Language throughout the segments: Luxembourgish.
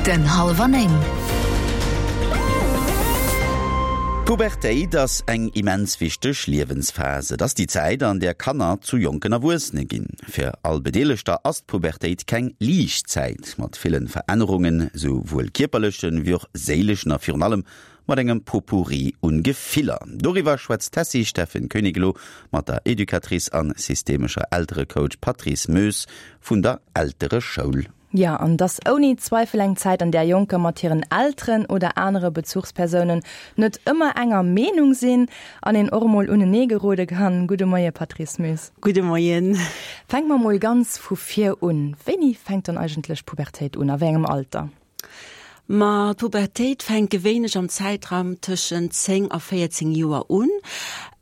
Den Hallwer 9. D'Pubertéit ass eng immens wichteg Liewensphas. Et ass déi Zäit, an där Kanner zu jonken Erwuessene ginn. Fir all Bedeelegter ass d'Pubertéit keng liicht Zäit, mat ville Verännerungen, sou wuel kierperlechen, wéi och séileschen a virun allem mat engem Potpourri un Gefiller. Doriwwer schwätzt d'Tessy Steffen Koenig elo mat der Educatrice an systemescher Elterecoach Patrice Moes vun der Eltereschoul. Jo, an 't ass ouni Zweifel eng Zäit, an där Jonker mat hiren Elteren oder anere Bezuchspersounen net ëmmer enger Meenung sinn an een och emol unenee gerode kann. Gudde Moie Patrice Moes. Gudde Moien. Fänke mer emol ganz vu vir un. Wéini fänkt dann eigentlech d'Pubertéit un? A wéi engem Alter? Ma d'Pubertéit fänkt gewéinlech am Zäitraum tëschent 10 a 14 Joer un,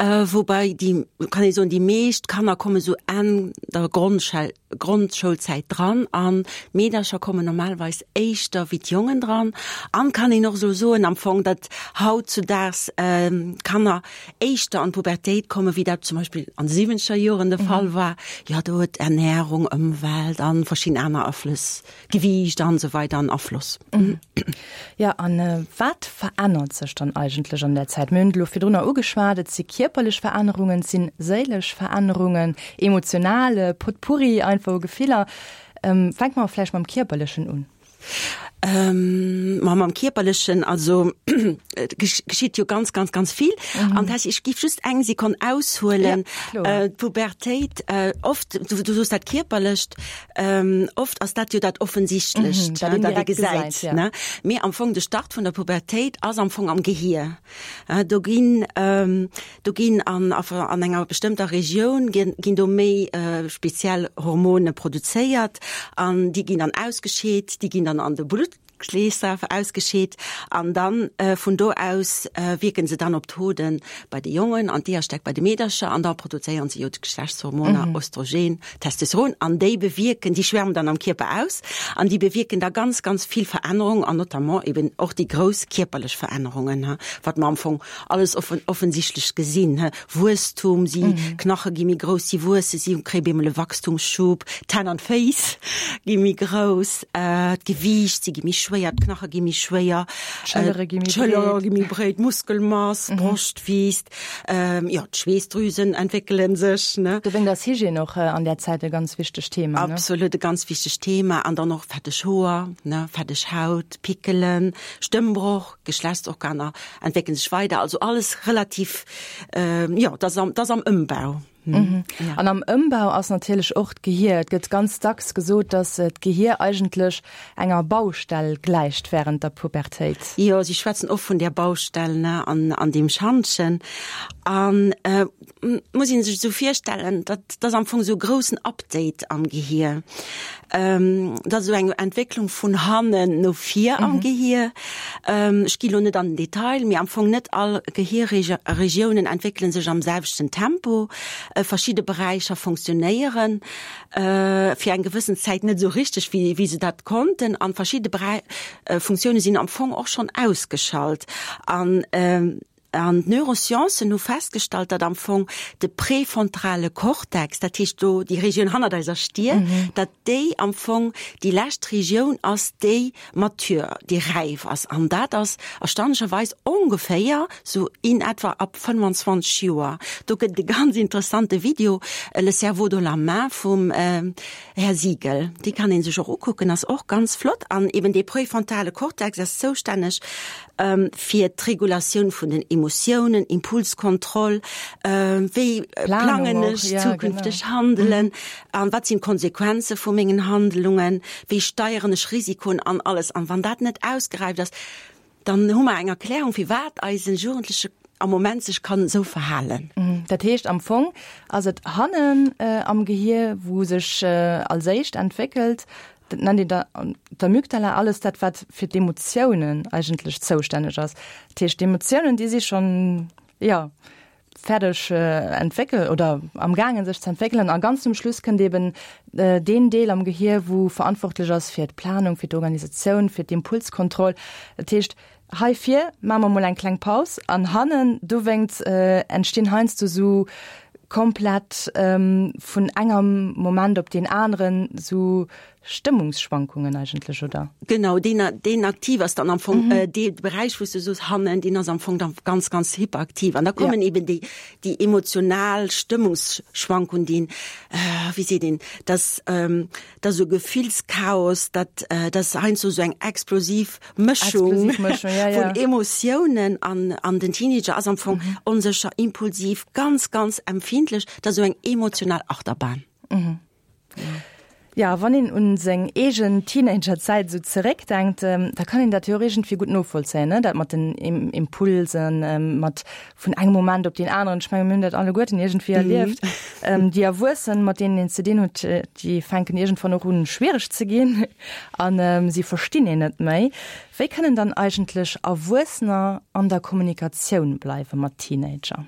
woubäi déi, kann ee soen, déi meescht Kanner komme sou Enn der Grondschel Grondschoulzäit dran an d'Meedercher kommen normalerweis éischter wéi d'Jongen dran. An kann een och sou soen am Fong, datt hautzudaags d'Kanner éischter an d'Pubertéit komme wéi dat zum Beispill an de siwwenzeger Joren de Fall war. Jo, do huet Ernährung, Ëmwelt an verschidden aner Aflëss Gewiicht an esou weider an Afloss. Jo, an wat verännert sech dann eigentlech an där Zäit? Mir hunn et elo virdrunner ugeschwat, et si kierperlech Verännerungen, et si séilesch Verännerungen, emotional, e Potpourri einfach u Gefiller. Fänke mer vläicht mam Kierperlechen un. Ma mam Kierperlechen, also et geschitt jo ganz, ganz, ganz vill. An dat, ech géif just eng Sekonn aushuelen. D'Pubertéit, oft, du soos dat Kierperlecht, Oft ass dat jo dat Offensichtlecht, dat ee gesäit. Mee am Fong de Start vun der Pubertéit ass am Fong am Gehier. Do ginn, do ginn an an enger bestëmmter Regioun ginn do méi speziell Hormone produzéiert an déi ginn dann ausgescheet, déi ginn dann an de Blutt. Kleesaf ausgescheet an dann vun do aus wierken se dann op d'Hoden bei de Jongen an d'Eeërstäck bei de Meedercher an da produzéieren se jo d'Geschlechtshormoner Östrogen, Testosteron an déi bewierken, déi schwärmen dann am Kierper aus an déi bewierken da ganz, ganz vill Verännerungen an notamment eben och déi grouss kierperlech Verännerungen, wat mer am Fong alles offensichtlech gesinn. Wuesstum, si Knache gi méi grouss, si wuessen, si kréie bemol e Wachstumsschub, d'Hänn an d'Féiss gi méi grouss, d'Gewiicht, si gi méi schwéier, d'Knache gi méi schwéier, d'Schëllere gi méi breet, d'Schëllere gi méi breet, d'Muskelmass, d'Broscht wiisst, jo, d'Schweessdrüsen entwéckele sech, ne. Dowéinst ass Hygiène och an där Zäit e ganz wichtegt Thema, ne? Absolut, e ganz wichtegt Thema. An dann och fetteg Hoer, ne, fetteg Haut, Pickelen, Stëmmbroch. Geschlechtsorganer entwéckelen sech weider, also alles relativ, jo, dat ass am Ëmbau. An am Ëmbau ass natierlech och d'Gehier. Et gëtt ganz dacks gesot, datt d'Gehier eigentlech enger Baustell gläicht wärend der Pubertéit. Jo, si schwätzen oft vun där Baustell, ne, an deem Schantjen. An muss een sech esou virstellen, dat ass am Fong esou e groussen Update am Gehier. Dat ass esou eng Entwécklung vun hannen no vir am Gehier. Ech gi lo net an den Detail, mee am Fong net all Gehierregiounen entwéckele sech am selwechten Tempo. Verschidde Beräicher funktionéieren fir eng gewëssen Zäit net esou richteg, wéi se dat konnten. An verschidde Funktioune sinn am Fong och schonn ausgeschalt. An An d'Neurosciencen hu festgestallt, datt am Fong de präfrontale Cortex, dat heescht do déi Regioun hannert eiser Stier, datt déi am Fong déi lescht Regioun ass, déi mature, déi räif ass. An dat ass erstaunlecherweis ongeféier sou in etwa ab 25 Joer. Do gëtt et e ganz interessante Video, Le cerveau dans la main vum Här Siegel. Dee kann ee sech och ukucken, ass och ganz flott. An eben dee präfrontale Cortex ass zoustänneg fir d'Regulatioun vun den Emotiounen, Impulskontroll, wéi plangen ech zukünfteg Handelen an wat sinn d'Konsequenze vu mengen Handlungen, wéi steieren ech Risikoen an alles. An wann dat net ausgeräift ass, dann hu mer eng Erklärung, firwat eise Jugendleche am Moment sech kann esou verhalen. Dat heescht, am Fong ass et hannen am Gehier, wou sech als éischt entwéckelt, Dat nennt een da d'Amygdala, alles dat, wat fir d'Emotiounen eigentlech zoustänneg ass. Dat heescht, d'Emotiounen, déi si schonn, jo, fäerdeg entwéckelt oder am gaangen sech ze entwéckelen. A ganz zum Schluss kënnt eben deen Deel am Gehier, wou verantwortlech ass fir d'Planung, fir d'Organisatioun, fir d'Impulskontroll. Dat heescht, hei vir maache mer mol eng kleng Paus an hannen dowéinst entstinn heiansdo sou komplett vun engem Moment op deen aneren sou. Stëmmungsschwankungen eigentlech, oder? Genau, deen, deen aktiv ass dann am Fong, mhm. äh, dee Beräich, wou s du soos, hannen, deen ass am Fong dann ganz, ganz hyperaktiv. An da kommen ja. eben déi, déi emotional Stëmmungsschwankungen, déi, äh, wéi seet een, dass, ähm, dass esou Gefillschaos, dat, äh, dass heiansdo esou eng explosiv Mëschung, explosiv Mëschung ja, ja. vun Emotiounen an, an den Teenager ass am Fong mhm. onsécher, impulsiv, ganz, ganz empfindlech, dat ass esou eng emotional Achterbahn. Mhm. Ja, wann een un seng eegen Teenagerzäit esou zeréckdenkt, da kann een dat jo och iergendwéi gutt novollzéien, ne? Dat mat den Impulsen, mat vun engem Moment op deen aneren. Ech menge mir hunn dat alleguerten iergendwéi erlieft. Déi Erwuessen, mat deenen een ze dinn huet, déi fänken iergendwann och un, schwiereg ze ginn a si verstinn een net méi. Wéi kënnen dann eigentlech Erwuessener an der Kommunikatioun bleiwe mat Teenager?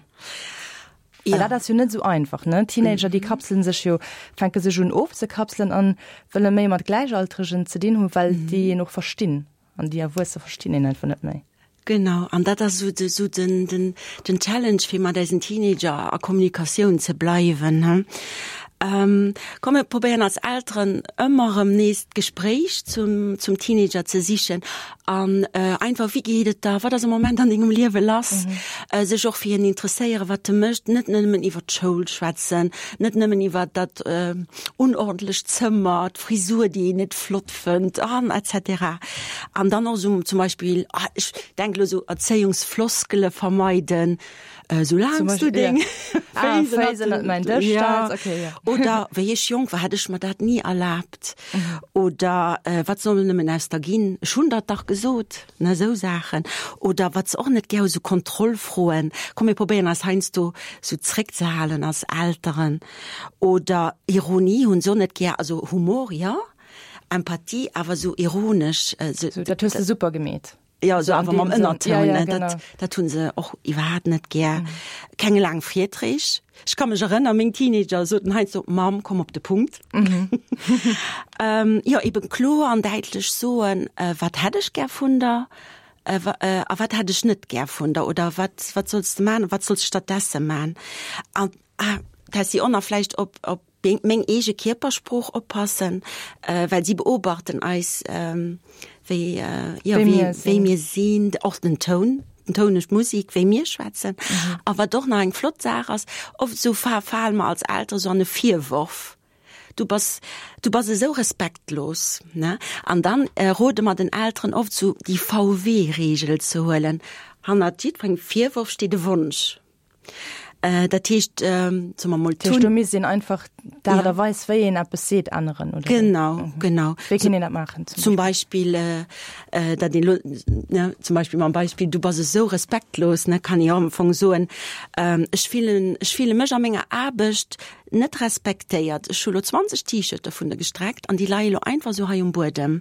Ja. Well dat ass jo net esou einfach, ne? Teenager, déi kapselen sech jo, fänke sech un ofzekapselen an wëlle méi mat Gläichaltregen ze dinn hunn, well déi een och verstinn. An déi Erwuesse verstinn een einfach net méi. Genau, an dat ass esou de, esou den, den, den Challenge, fir mat eisen Teenager a Kommunikatioun ze bleiwen, ne? Komm mir probéieren als Elteren ëmmer erëm nees d'Gespréich zum, zum Teenager ze sichen an einfach, wéi geet et der, wat ass am Moment an dengem Liewe lass, sech och fir hien interesséieren, wat e mécht, net nëmmen iwwer d'Schoul schwätzen, net nëmmen iwwer dat unordentlecht Zëmmer, d'Frisur, déi een net flott fënnt an et cetera. An dann och esou zum Beispill, ech denke elo esou Erzéiungsfloskele vermeiden, Soulaangs du deng Féiss ënnert mäin Dësch stells. Okay, ja. Oder wéi ech jonk war, hätt ech mer dat ni erlaabt. Oder wat soll nëmmen aus der ginn? Ech hunn der et dach gesot. Ne, esou Saachen. Oder wat se och net gär hu, sou Kontrollfroen. Komm mir probéieren eis heiansdo sou zréckzehalen als Elteren. Oder Ironie hunn se och net gär, also Humor, jo, Empathie, awer sou ironesch. Sou, dat hues de super gemeet. Jo, esou awer mam Ënnertoun, ne? Dat, dat hu se och iwwerhaapt net gär. Keng laang Virträg. Ech ka mech erënnern, meng Teenager soten heiansdo, Mamm, komm op de Punkt. Jo, eben kloer an däitlech soen, wat hätt ech gär vun der a wat hätt ech net gär vun der oder wat, wat solls de man, wat solls de stattdesse man? An, ah, Tessy, och nach vläicht op, op meng eege Kierpersprooch oppassen, well si beobachten eis, wéi, jo, wéi mir sinn, och den Toun, den Toun duerch d'Musik, wéi mir schwätzen. A wat och nach eng flott Saach ass, oft esou fale mer als Eltere sou an e Virworf, Du bass, du bass esou respektlos, ne? An dann rode mer den Elteren oft sou déi VW-Reegel ze huelen, Hannert jiddwerengem Virworf steet e Wonsch. Dat heescht, soe mer mol, Dat heescht, do misst een einfach d'Aart a Weis, wéi een eppes seet, änneren, oder wéi? Genau, genau. Wéi kéint een dat maachen zum Beispill? Zum Beispill, datt een elo, ne, zum Beispill mam Beispill, du bass esou respektlos, ne, kann ee jo am Fong soen, ech fillen, ech fille mech a menger Aarbecht net respektéiert. Ech hu lo 20 T-Shirte vun der gestreckt an déi leie lo einfach esou hei um Buedem.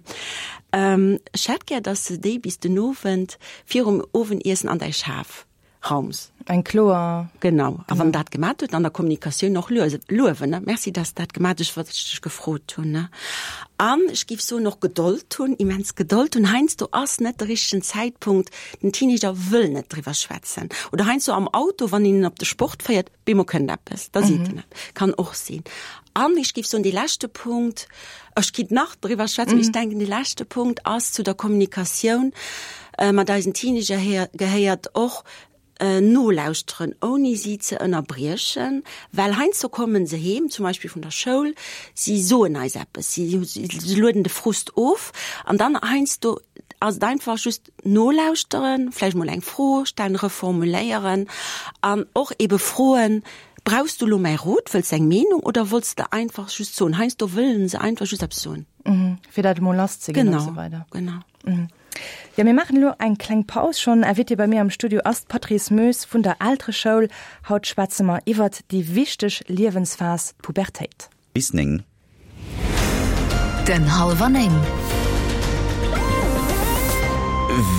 Ech hätt gär, datt s de déi bis den Owend virum Owendiessen an däi Schaf Raums. Eng kloer. Genau. A wann dat gemat huet, an der Kommunikatioun och luewen, ne? Merci, dass dat gemat hues, wat ech dech gefrot hunn, ne? An ech géif soen, och Gedold hunn, immens Gedold hunn. Heiansdo ass net de richtegen Zäitpunkt, den Teenager wëll net driwwer schwätzen. Oder heiansdo am Auto, wann een en op de Sport féiert, bemol kënnt eppes, da seet en eppes. Kann och sinn. An ech géif soen, dee leschte Punkt, ech kinnt nach driwwer schwätzen, mee ech denken, dee leschte Punkt ass zu der Kommunikatioun mat eisen Teenager gehéiert och nolauschteren, ouni si ze ënnerbriechen, well heiansdo komme se heem, zum Beispill vun der Schoul, si soen eis eppes, si lueden de Frust of an dann heiansdo ass et einfach just nolauschteren, vläicht mol eng Fro stellen, reformuléieren an och ebe froen, Brauchs du elo mäi Rot, wëlls de eng Meenung oder wollts de einfach just soen? Heiansdo wëllen se einfach just eppes soen. Fir dat emol lass ze ginn an esou weider. Genau, genau. Jo, mir maachen elo eng kleng Paus. Schonn Invitée bei mir am Studio ass d'Patrice Moes vun der Eltereschoul. Haut schwätze mer iwwert déi wichteg Liewensphas, d'Pubertéit. Bis 9. Den Hallwer 9.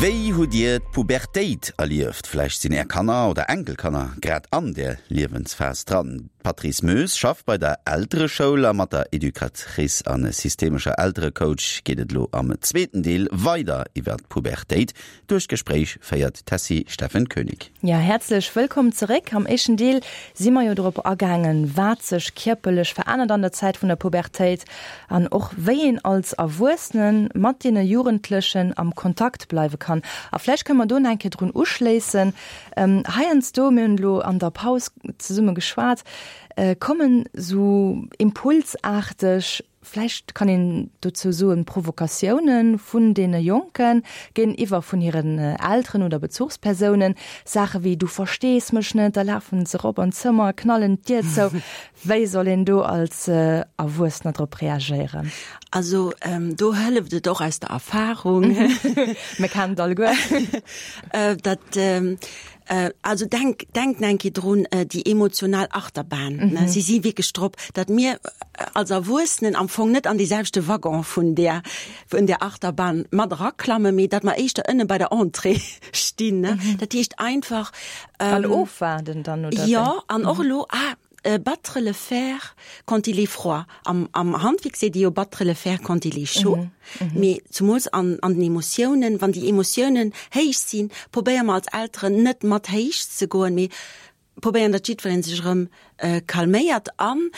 Wéi hutt Dir d'Pubertéit erlieft? Vläicht sinn Är Kanner oder Enkelkanner grad an där Liewensphas dran. D'Patrice Moes schafft bei der Eltereschoul a mat der Educatrice a systemescher Elterecoach geet et elo am zweeten Deel weider iwwer d'Pubertéit. Duerch d'Gespréich féiert d'Tessy Steffen Koenig. Jo, häerzlech wëllkomm zeréck. Am éischten Deel si mer jo dorop agaangen, wat sech kierperlech verännert an der Zäit vun der Pubertéit an och wéi een als Erwuessene mat deene Jugendlechen am Kontakt bleiwe kann. A vläicht kënne mer do nach eng Kéier drun uschléissen. Heiansdo, mir hunn elo an der Paus zesumme geschwat, kommen esou impulsaarteg, vläicht kann een dozou soen, Provokatiounen vun deene Jonke géintiwwer vun hiren Elteren oder Bezuchspersounen, Saache wéi du verstees mech net, da lafen se erop an d'Zëmmer, knallen d'Dier zou. Wéi soll een do als Erwuessener drop reagéieren? Also do hëlleft et och aus der Erfahrung. Mir kennen et alleguer. Dat also denk denkt eng Kéier drun, déi emotional Achterbahn, ne, si si wierklech drop, datt mir als Erwuessenen am Fong net an dee selwechte Waggon vun där vun där Achterbahn mat eraklammen, mee datt mer éischter ënne bei der Entrée stinn, ne. Dat heescht einfach. An ofwaarden dann, oder wéi? Jo, an och elo, ah, Battre le fer quand il est froid. Am, am Handwierk seet ee jo battre le fer quand il est chaud. Mee zumools an, an den Emotiounen, wann déi Emotiounen héich sinn, probéiere mer als Elteren net mat héich ze goen, mee probéieren, datt jiddweree sech erëm calméiert. An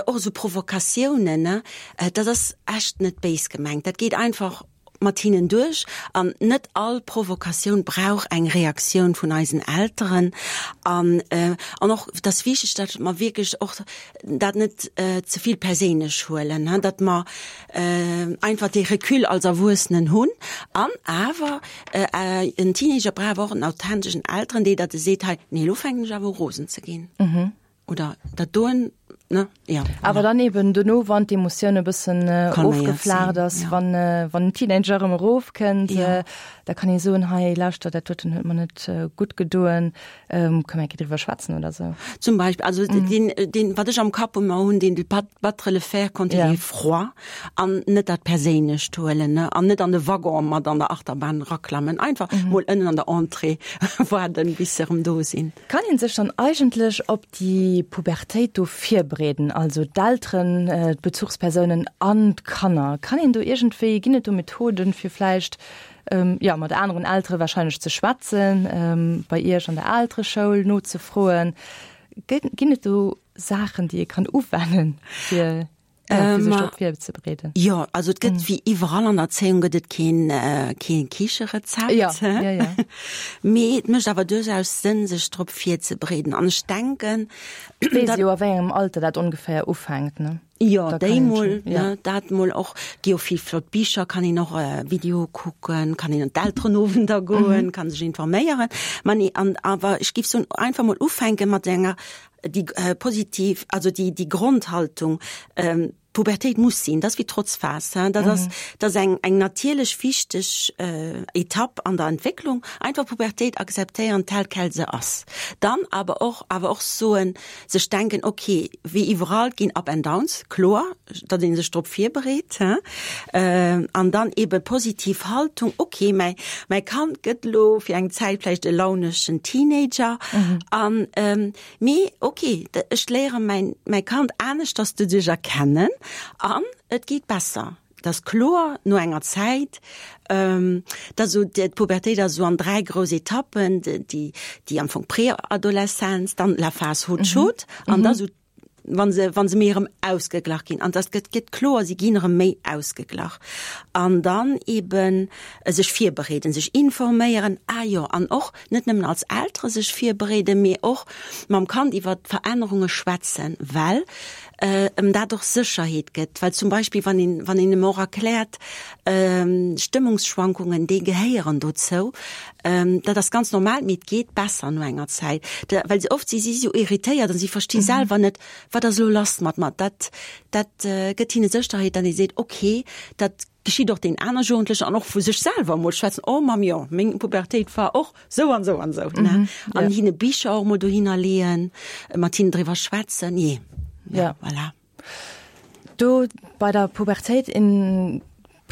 och esou Provokatiounen, ne, dat ass echt net béis gemengt, dat geet einfach mat hinnen duerch an net all Provokatioun brauch eng Reaktioun vun eisen Elteren an an och et ass wichteg, datt mer wierklech och dat net ze vill perséinlech huelen, datt mer einfach dee Recul als Erwuessenen hunn an awer en Teenager brauch awer och en authenteschen Elteren, dee datt e seet, hei nee elo fänken ech awer u rosen ze ginn. Oder dat doen, ne? Ja. Awer dann eben dono, wann d'Emotioun e bëssen ofgeflaacht ass, wann, wann den Teenager erëm erofkënnt, da kann ee soen, hei lauschter, dat doten huet mer net gutt gedoen, kënne mer eng Kéier driwwer schwätzen oder sou. Zum Beispill, also deen, deen, wat ech am Kapp ëmmer hunn, deen de battre le fer quand il est froid an net dat Perséinlecht huelen, ne, an net an de Waggon mat an der Achterbahn eraklammen, einfach mol ënnen an der Entrée waarden, bis se erëm do sinn. Kann een sech dann eigentlech op déi Pubertéit do virbereeden, also d'Elteren, d'Bezuchspersounen an d'Kanner? Kann een do iergendwéi, ginn et do Methoden, fir vläicht, jo, mat aneren Eltere wahrscheinlech ze schwätzen, bei Iech an der Eltereschoul nozefroen? Ginn et do Saachen, déi ee kann uwennen, fir. Ja, fir sech drop virzebereeden. Jo, also et gëtt wéi iwwerall an der Erzéiung gëtt et keen, keen Kicherezept. Ja, ja, ja. Mee et mécht awer duerchaus Sënn, sech drop virzebereeden. An ech denken, Weess jo a wéi engem Alter dat ongeféier ufänkt, ne? Jo, déi mol, ne, dat mol och. Gi jo vill flott Bicher, kann een och Videoe kucken, kann een an d'Elterenowender goen, kann sech informéieren. Ma nee, an awer ech géif soen, einfach mol ufänke mat enger déi positiv, also déi, déi Grondhaltung, Pubertéit muss sinn, dat ass wéi Trotzphas, hein, dat ass, dat ass eng, eng natierlech wichteg Etapp an der Entwécklung, einfach Pubertéit akzeptéieren tel quel se ass. Dann awer och, awer och soen, sech denken, okay, wéi iwwerall ginn Up and Downs, kloer, datt ee sech drop virbereet, hein, an dann eebe positiv Haltung, okay, mäi, mäi Kand gëtt elo fir eng Zäit vläicht e launeschen Teenager an, Mee ok, ech léiere mäin mäi Kand aneschters doduerch erkennen an et geet besser. Et ass kloer no enger Zäit, dat esou d'Pubertéit ass esou an 3 grouss Etappen, déi déi am Fong Preadoleszenz, dann la phase haute chaude an da esou wa se wa se méi erëm ausgeglach ginn. An dat gëtt gëtt kloer, si ginn erëm méi ausgeglach. An dann eeben sech virbereeden, sech informéieren, ah jo, an och Net nëmmen als Eltere sech virbereeden, mee och mam Kand iwwer d'Verännerunge schwätzen, well em dat och Sécherheet gëtt. Well zum Beispill wann een, wann een em och erkläert, Stëmmungsschwankungen, déi gehéieren dozou, dat ass ganz normal, mee et geet besser no enger Zäit. Well se oft si si sou irritéiert an si versti selwer net, wat ass elo lass mat mer. Dat, dat gëtt hinne Sécherheet, datt ee seet, okay, dat Geschitt och den aner Jugendlechen an och vu sech selwer emol schwätzen, oh Mamm, jo, meng Pubertéit war och sou an sou an sou, ne? An hinne Bicher och emol dohinner leeën, mat hinnen driwwer schwätzen, jee, ja, voilà. Do bei der Pubertéit, en.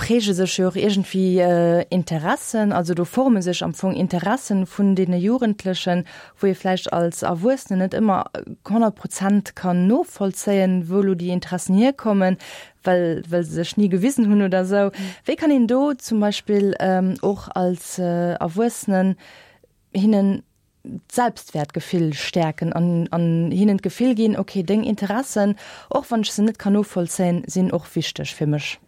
präge sech jo och iergendwéi Interessen, also do forme sech am Fong Interessen vun deene Jugendlechen, wou ee vläicht als Erwuessenen net ëmmer 100 Prozent kann novollzéien, wou elo déi Interessen hierkommen, well well se sech ni gewisen hunn oder esou. Wéi kann een do zum Beispill och als Erwuessenen hinnen d'Selbstwäertgefill stäerken an an hinnen d'Gefill ginn, okay, deng Interessen, och wann ech se net kann novollzéien, sinn och wichteg fir mech?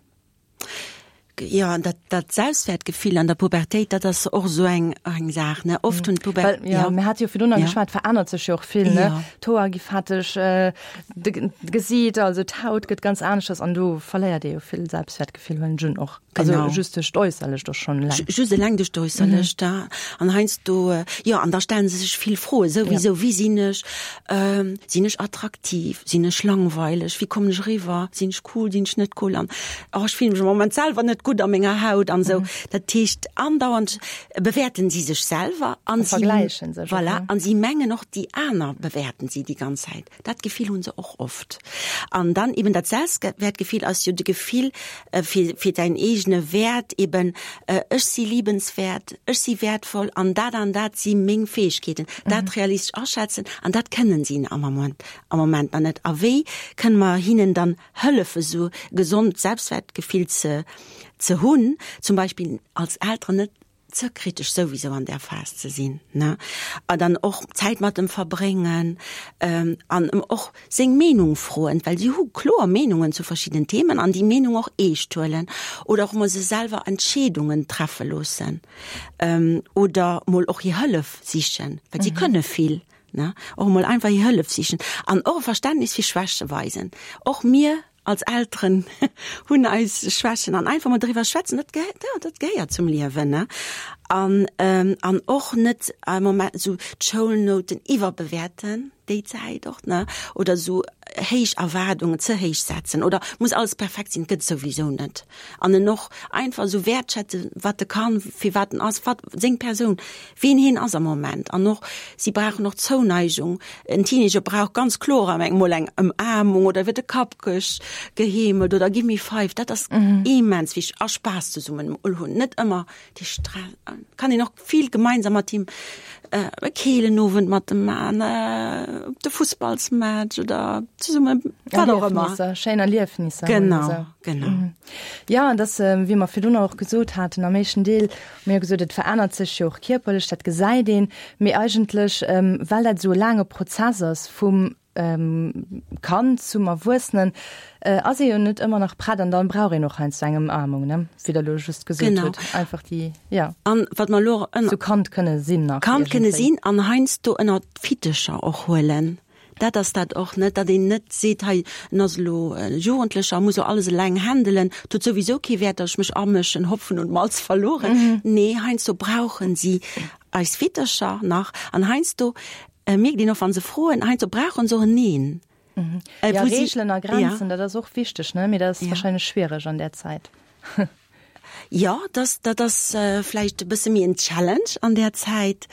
Jo, an dat, dat Selbstwertgefill an der Pubertéit, dat ass och esou eng, eng Saach, ne? Oft hunn d'Puber-. Well, jo, mir hate jo virdrun nach geschwat, et verännert sech jo och vill, ne? D'Hoer gi fetteg, de Gesiit, also d'Haut gëtt ganz aneschters an do verléiert ee jo vill Selbstwertgefill, huelen ech un och. Genau. Also just duerch d'Äusserlecht och schonn eleng. Just eleng duerch d'Äusserlecht, ja. An heiansdo, jo, an da stellen se sech vill Froen, souwisou, Wie sinn ech? Sinn ech attraktiv? Sinn ech langweileg? Wéi kommen ech eriwwer? Sinn ech cool? Sinn ech net cool? An, oh, ech fillen mech am Moment selwer net gutt a menger Haut an esou. Dat heescht, andauernd bewäerten si sech selwer an si, vergläichen sech och, voilà, an si mengen och, déi aner bewäerten si déi ganz Zäit. Dat Gefill hu se och oft. An dann eben dat Selbstwertgefill ass jo de Gefill fir, fir däin eegene Wäert, eben ech si liebenswäert, ech si wäertvoll an dat an dat si meng Fäegkeeten. Dat realistesch aschätzen an dat kënnen si am Moment, am Moment nach net. A wéi kënne mer hinnen dann hëllefe sou gesond Selbstwertgefill ze, ze hunn, zum Beispill als Elteren net ze kritesch souwisou an där Phas ze sinn, ne, a dann och Zäit mat em verbréngen an em och seng Meenung froen, well si hu kloer Meenungen zu verschiddenen Themen an déi Meenung och eescht huelen oder och mol se selwer Entscheedungen treffe loossen oder mol och hir Hëllef sichen, well si kënne vill, ne, och mol einfach hir Hëllef sichen an och e Verständnis fir Schwäche weisen. Och mir Als Elteren hunn eis Schwächen an einfach mol driwwer schwätzen, dat gehéiert, jo, dat gehéiert zum Liewen, ne? An, an och net am Moment esou d'Schoulnouten iwwerbewäerten, déi Zäit och, ne? Oder esou héich Erwaardungen, ze héich setzen oder muss alles perfekt sinn, gëtt et souwisou net. An en och einfach esou wäertschätzen, wat e kann, firwat en ass, wat seng Persoun, ween hien ass am Moment. An och, si brauchen och Zouneigung. En Teenager brauch ganz kloer am eng mol eng Ëmaarmung oder iwwer de Kapp geheemelt oder Gimme five. Dat ass immens wichteg. A Spaass zesummen mol hunn, net ëmmer dee Stress. Kann een och vill gemeinsam mat him e keelen Owend mat em man, op de Fussballsmatch oder zesumme wat och ëmmer. Erliefnisser, schéin Erliefnisser. Genau, genau. Jo, an dass, wéi mer virdrun och gesot haten am éischten Deel, Mir hu gesot, et verännert sech jo och kierperlech, dat gesäit een, mee eigentlech, well dat esou e laange Prozess ass vum Kand zum Erwuessenen, ass ee jo net ëmmer nach prett an da brauch een och heiansdo eng Ëmaarmung, ne, wéi Der elo just gesot hutt, einfach déi, jo, An wat mer elo ënner. Sou Kand kënne sinn nach Kand kënne sinn an heiansdo ënner d'Fittecher och huelen. Dat ass dat och net, datt een net seet, hei en ass elo e Jugendlecher, muss elo alles eleng handelen, et huet souwisou kee Wäert, datt ech mech amëschen, Hopfen und Malz verloren. Nee, heiansdo brauchen si eis Fittercher nach an heiansdo mierkt een och, wa se froen, heiansdo brauchen se och en Neen. Jo, Reegelen a Grenzen, dat ass och wichteg, ne? Mee dat ass wahrscheinlech schwiereg an där Zäit. Jo, dass, dat ass vläicht e bësse méi en Challenge an där Zäit,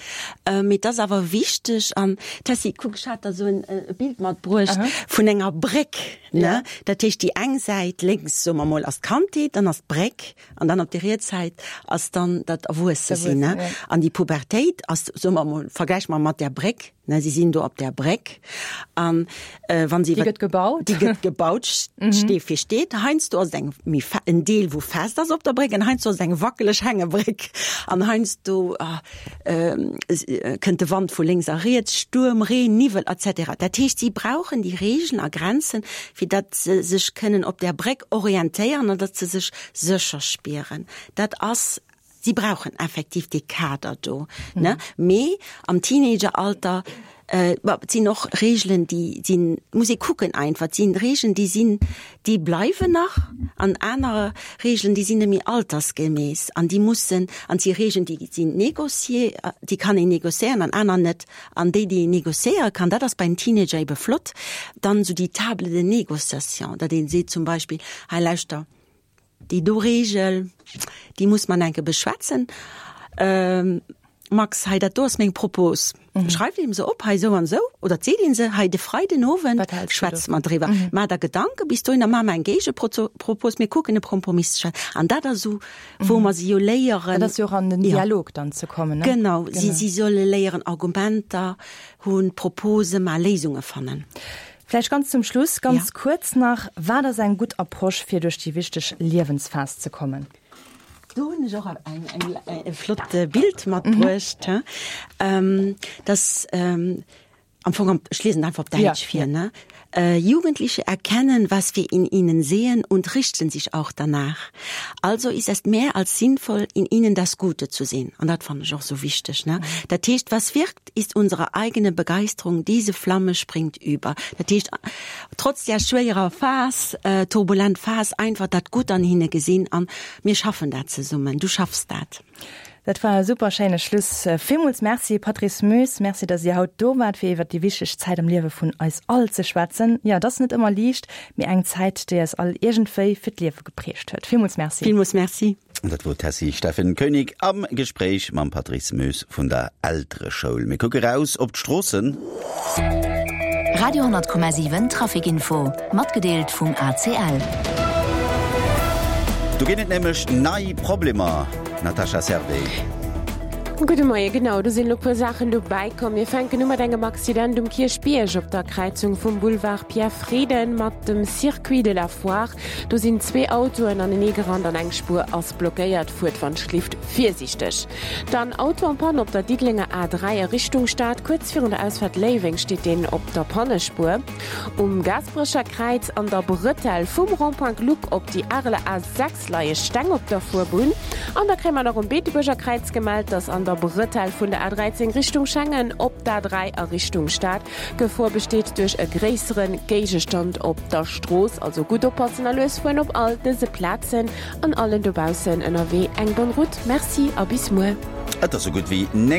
mee et ass awer wichteg. An Tessy, kuck, ech hat der esou en e Bild matbruecht vun enger Bréck, ne? Dat heescht, déi eng Säit lénks, soe mer mol, ass d'Kandheet, dann ass d'Bréck an dann op der riets Säit ass dann dat Erwuessesinn, ne? An déi Pubertéit ass, soe mer mol, vergläiche mer mat där Bréck, Ne, si sinn do op där Bréck an wann si Déi gëtt gebaut. Déi gëtt gebaut, Stee fir Stee. Heiansdo ass et eng méi fe en Deel wou fest ass op der Bréck an heiansdo ass et eng wackeleg Hängebréck an heiansdo kënnt de Wand vu lénks a riets, Stuerm, Reen, Niwwel etc. Dat heescht, si brauchen déi Regeln a Grenzen, fir datt se sech kënnen op där Bréck orientéieren an datt se sech sécher spieren. Dat ass Si brauchen effektiv dee Kader do, ne? Mee am Teenageralter, bon, et sinn och Regeln, déi sinn, muss ee kucken einfach, et sinn Regeln, déi sinn, déi bleiwen nach an aner Regeln, déi sinn net méi altersgemäss an déi mussen, an et si Regeln, déi sinn négocier, déi kann een négociéieren an aner net. An déi, déi een négociéiere kann, dat ass bei den Teenager ebe flott, dann esou déi Table de négociation, datt ee seet zum Beispill, hei lauschter, Déi do Regel, déi muss man enke beschwätzen. Max, hei dat do ass meng Propos. Schreift een se op, hei esou an esou, oder et seet een se, hei de Freiden Owend schwätze mer driwwer. Maach der Gedanke bis dohinner, maach mer eng Géigepropos, mir kucken e Kompromiss ze schaafen. An dat ass esou, wou mer si jo léieren. Dat ass jo och an den Dialog dann ze kommen, ne? Genau, si solle léieren Argumenter hunn, Propose maachen, Léisunge fannen. Vläicht ganz zum Schluss, ganz kuerz nach, Wat ass eng gutt Approche, fir duerch déi wichteg Liewensphas ze kommen? Do hunn ech och eng, eng, e flott Bild matbruecht. Mhm. Das ähm, am Fong, ech liesen einfach op Däitsch ja, vir. Ne? Äh, Jugendliche erkennen, was wir in ihnen sehen und richten sich auch danach. Also ist es mehr als sinnvoll, in ihnen das Gute zu sehen. An dat fand ech och so wichteg. Ne? Mhm. Dat heescht, was wirkt, ist unsere eigene Begeisterung. Diese Flamme springt über. Dat heescht, trotz där schwéierer Phas, turbulent Phas, einfach dat Gutt an hinne gesinn an mir schaffen dat zesummen, du schaffs dat. Dat war e super schéine Schluss. Villmools Merci Patrice Moes, Merci datt Dir haut do waart fir iwwert déi wichteg Zäit am Liewe vun eis all ze schwätzen. Jo, et ass net ëmmer liicht, mee eng Zäit déi eis all iergendwéi fir d'Liewe geprägt huet. Villmools Merci. Villmools Merci. Dat wor d'Tessy Steffen Koenig am Gespréich mam Patrice Moes vun der Eltereschoul. Mir kucke raus op d'Stroossen. Radio 10,7 Traficinfo, matgedeelt vum ACL. Do ginn et nämlech nei Problemer, Natasha Servais. Gudde Moie, genau, do sinn elo puer Saachen dobäi komm. Mir fänken u mat engem Accident um Kierchbierg op der Kräizung vum Boulevard Pierre Frieden mat dem Circuit de la Foire. Do sinn zwee Autoen anenee gerannt an eng Spuer ass blockéiert. Fuert wann schlift virsiichteg. Dann Auto en panne op der Diddelenger A3 a Richtung Stad. Kuerz virun der Ausfahrt Léiweng steet deen op der Pannespuer. Um Gaasperecher Kräiz an der Bretelle vum Rond-point Gluck op déi Areler A6 leie Steng op der Fuerbunn. An da kréie mer nach um Beetebuerger Kräiz gemellt, dass an der Bretelle vun der A13 Richtung Schengen op d'A3 a Richtung Stad Gefor besteet duerch e gréissere Géigestand op der Strooss, also gutt oppassen a lues fueren op all dëse Plazen an allen dobaussen ënnerwee eng bonne route. Merci a bis muer. Et ass sou gutt wéi 9.